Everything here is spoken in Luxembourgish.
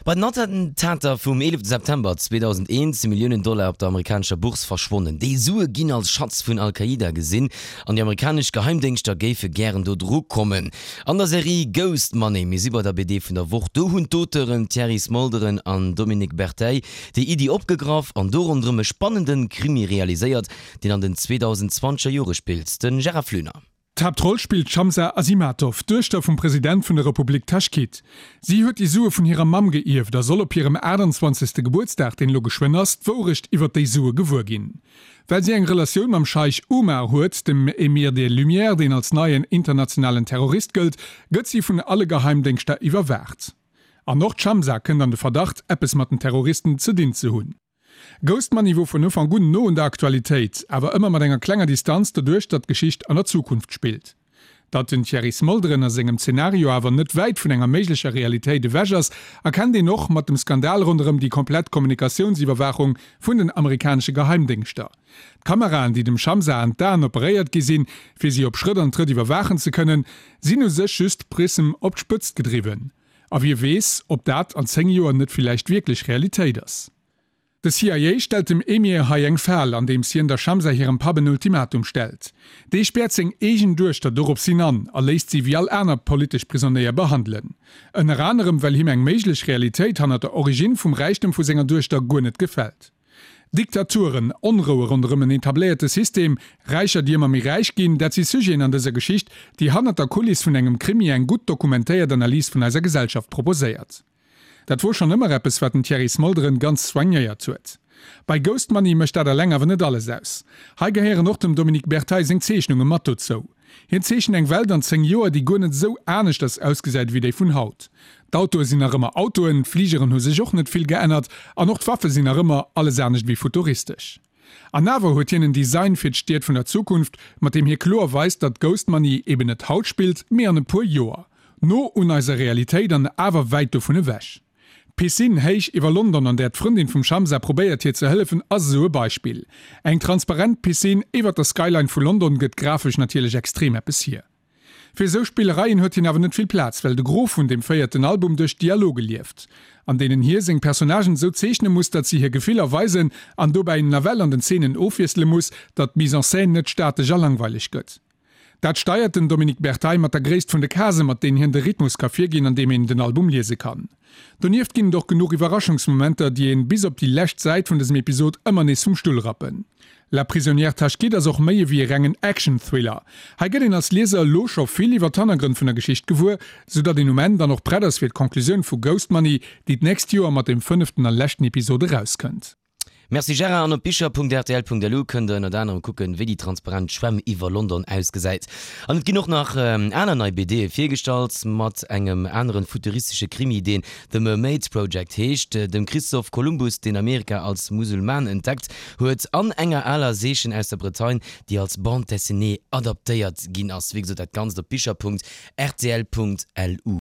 Bei den Attentater vum 11 September 2001 si Milliounen Dollar op der amerikanescher Bourse verschwonnen. Déi Sue ginn als Schatz vun Al-Qaida gesinn an déi amerikanesch Geheimdéngschter géife gären do dru kommen. An der Serie Ghost Money, mir si bei der BD vun der Woch, do hunn d'Auteuren Thierry Smolderen an Dominique Berteille déi Iddi opgegraff an do ronderëm e spannende Krimi realiséiert, deen an den 2020er Jore spillt. De Gérard Flöner. D'Haaptroll spillt d'Shamsa Azimatov, d'Duechter vum President vun der Republik Taschkit. Si huet déi Sue vun hirer Mamm geierft a soll op hirem 28. Gebuertsdag, deen elo geschwënn ass, d'Wourecht iwwer déi Sue gewuer ginn. Well si eng Relatioun mam Scheich Umar huet, dem Emir des Lumières, deen als neien internationalen Terrorist gëllt, gëtt si vun alle Geheimdéngschter iwwerwaacht. An och d'Shamsa kënnt an de Verdacht, eppes mat den Terroristen ze dinn ze hunn. Ghost Money wor vun Ufank un no un der Aktualitéit, awer ëmmer mat enger klenger Distanz doduerch datt d'Geschicht an der Zukunft spillt. Datt den Thierry Smolderen a sengem Zenario awer net wäit vun enger méiglecher Realitéit ewech ass, erkennt een och mat dem Skandal ronderëm déi komplett Kommunikatiounsiwwerwaachung vun den amerikanesche Geheimdéngschter. D'Kameraen, déi dem Shamsa an d'Aen operéiert gi sinn, fir si op Schrëtt an Trëtt iwwerwaachen ze kënnen, sinn u sech just Prism op d'Spëtzt gedriwwen. A wie weess, ob dat an 10 Joer net villäicht wierklech Realitéit ass. De CIA stellt dem Emir hei eng Fal, andeems hien der Shamsa hirem Papp en Ultimatum stellt. Dee späert seng eegen Duechter doropshin an a léisst si wéi all aner politesch Prisonéier behandelen. Ënner anerem well him eng méiglech Realitéit hannert der Originn vum Räichtem vu senger Duechter guer net gefält. Diktaturen, Onroue ronderëm en etabléierte System, Räicher déi ëmmer méi räich ginn, dat si Sujeten an dëser Geschicht, déi hannert der Kuliss vun engem Krimi eng gutt dokumentéiert Analys vun eiser Gesellschaft proposéiert. Dat wor schonn ëmmer eppes, wat den Thierry Smolderen ganz soignéiert huet. Bei Ghost Money mécht dat eleng awer net alles aus. Hei gehéieren och dem Dominique Berteille seng Zeechnunge mat dozou. Hien zeechent eng Welt an 10 Joer, déi guer net esou aneschters ausgesäit ewéi déi vun haut. D'Autoe sinn nach ëmmer Autoen, d'Fligeren hu sech och net vill geännert an och d'Waffe sinn nach ëmmer alles anescht ewéi futuristesch. An awer huet hien en Design fir d'Stied vun der Zukunft, mat deem hie kloer weist, datt Ghost Money eben net haut spillt, mee an e puer Joer. No un eiser Realitéit an awer wäit dovun ewech. D'Piscine héich iwwer London, an där d'Frëndin vum Shamsa probéiert hir ze hëllefen, ass esou e Beispill. Eng transparent Piscine iwwer der Skyline vu London gëtt grafesch natierlech extrem eppes hier. Fir esou Spillereien huet hien awer net vill Plaz, well de Gros vun deem véierten Album duerch Dialoge lieft, an deenen hie seng Personnagen esou zeechne muss, datt si hir Gefiller weisen an dobäi nawell an den Zeenen ofwiessele muss, datt d'Mise en scène net statesch a langweileg gëtt. Dat steiert den Dominique Berteille mat der Gréisst vun de Casen, mat deenen hien de Rhythmus ka virginn, an deem een den Album liese kann. Donieft ginn et och genuch Iwwerraschungsmomenter, déi een bis op déi lescht Säit vun dësem Episod ëmmer nees vum Stull rappen. La prisonnière Tashkit ass och méi ewéi e rengen Action-Thriller. Hei gëtt een als Lieser elo scho vill iwwer d'Hannergrënn vun der Geschicht gewuer, sou datt een um Enn dann och prett ass fir d'Conclusioun vu Ghost Money, déi d'nächst Joer mat dem fënneften a leschten Episod erauskënnt. Merci Gérard, an op bicher.rtl.lu kënnt der ënnert anerem kucken, wéi déi transparent Schwämm iwwer London ausgesäit. An et ginn och nach aner nei BDe virgestallt, mat engem aneren futuristesche Krimi, deen The Mermaids Project heescht, dem Christoph Kolumbus, deen Amerika als Musulman entdeckt huet, an enger aler Seechen aus der Bretagne, déi als Bande dessinée adaptéiert ginn ass. Wéi gesot, dat Ganzt op bicher.rtl.lu.